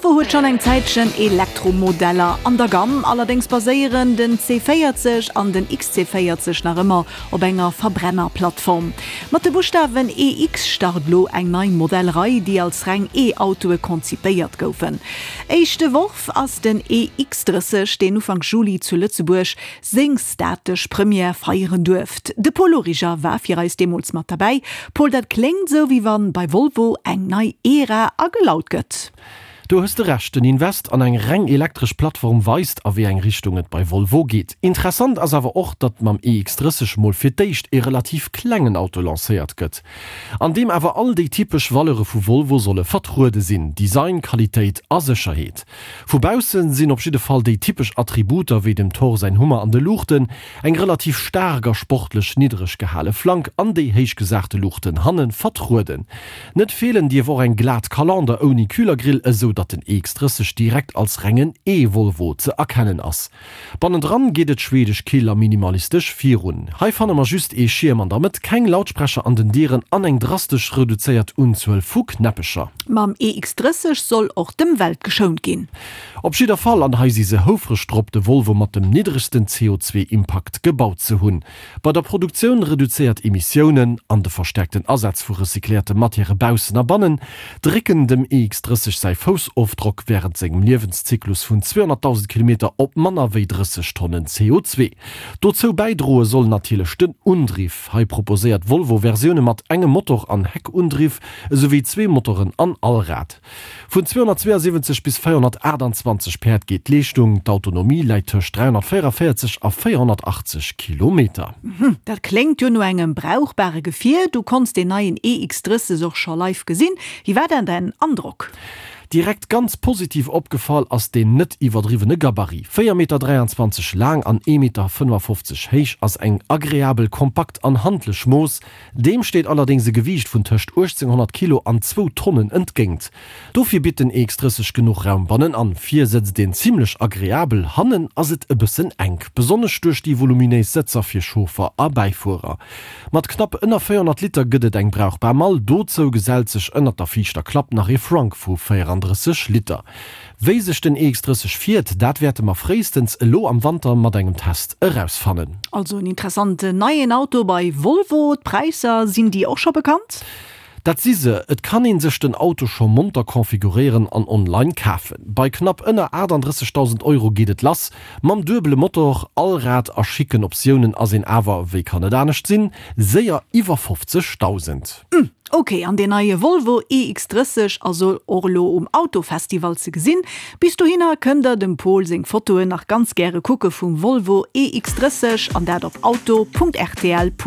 Volvo huet schonn eng Zäitchen Elektromodeller an der Gamm, allerdéngs baséieren den C40 an den XC40 nach ëmmer op enger Verbrennerplattform. Mat de Buschtawen EX start lo eng nei Modellrei, déi als reng E-Autoe konzipéiert goufen. Éischte Worf ass den EX30, deen Ufank Juli zu Lëtzebuerg seng statesch Première feieren duerft. De Paul Origer war fir eis deemools mat derbäi. Paul, dat kléngt esou, wéi wann bei Volvo eng nei Ära agelaut gëtt. Do hues de Recht, den Invest an eng reng elektresch Plattform weist, a wéi eng Richtung et bei Volvo geet. Interessant ass awer och, datt mam EX30 mol fir d'éischt ee relativ klengen Auto lancéiert gëtt, an deem awer all déi typesch Valeure vu Volvo solle vertruede sinn, Design, Qualitéit a Sécherheet. Vu bausse sinn op jidde Fall déi typesch Attributer wéi dem Thor säin Hummer an de Luuchten, eng relativ staark a sportlech niddereg gehale Flank an déi héich gesachte Luuchten hanne vertrueden. Net feelen dierf och eng glat Kalander ouni Kühlergrill, esou datt den EX30 direkt als rengen E-Volvo ze erkennen ass. Bannendran geet et schwedesch kill a minimalistesch virun. Hei fanne mer just ee Schierm an der Mëtt, keng Lautsprecher an den Dieren an eng drastesch reduzéiert Unzuel vu Knäppecher. Mam EX30 soll och d'Ëmwelt geschount ginn. Op jidder Fall, an hei si se houfreg drop, de Volvo mat dem niddregsten CO2-Impakt gebaut ze hunn. Bei der Produktioun reduzéiert Emissiounen an de verstäerkten Asaz vu recycléierte Matièrë baussen a bannen drécken dem EX30 säi Foussofdrock wärend sengem Liewenszyklus vun 200.000 Kilometer op manner wéi 30 Tonnen CO2. Dozou bäidroe soll natierlech den Undriff. Hei proposéiert Volvo Versioune mat engem Motor an Heckundriff, esouwéi zwee Motoren an Allrad. Vun 272 bis 428 Päerd geet d'Leeschtung, d'Autonomie läit tëscht 344 a 480 Kilometer. Dat kléngt jo no engem brauchbare Gefier. Du konns deen neien EX30 och scho live gesinn. Wéi war dann däin Androck? Direkt ganz positiv opgefall ass deen net iwwerdriwwene Gabarit. 4 Meter 23 laang an ee Meter 55 héich ass eng agreabel, kompakt an handlech Mooss, Deem steet allerdéngs e Gewiicht vun tëscht 1.800 Kilo an zwou Tonnen entgéint. Dofir bitt den EX30 genuch Raum bannenan. Vir sëtzt een zimmlech agreabel, hannen ass et e bëssen enk, besonnesch duerch déi voluminéis Sëtzer fir Chauffer a Bäifuerer. Mat knapp ënner 400 Liter gëtt et eng brauchbar Mall, dozou gesellt sech ënnert der viischter Klapp nach ee Frunk vu 34 Liter. Wéi sech den EX30 fiert, dat wäerte mer fréistens elo am Wanter mat engem Test erausfannen. Also en interessanten neien Auto bei Volvo. D'Präisser, sinn déi och scho bekannt? Dat si se, et kann een sech den Auto scho monter configuréieren an online kafen. Bei knapp ënner 38.000 Euro geet et lass. Mam duebele Motor, Allrad a schicken Optiounen ass een awer, wéi kann et anescht sinn, séier iwwer 50.000. Hm, ok, an deen neie Volvo EX30 ass och elo um Autofestival ze gesinn. Bis dohinner kënnt der dem Pol seng Fotoen nach ganz gäre kucke vum Volvo EX30 an dat op auto.rtl.lu.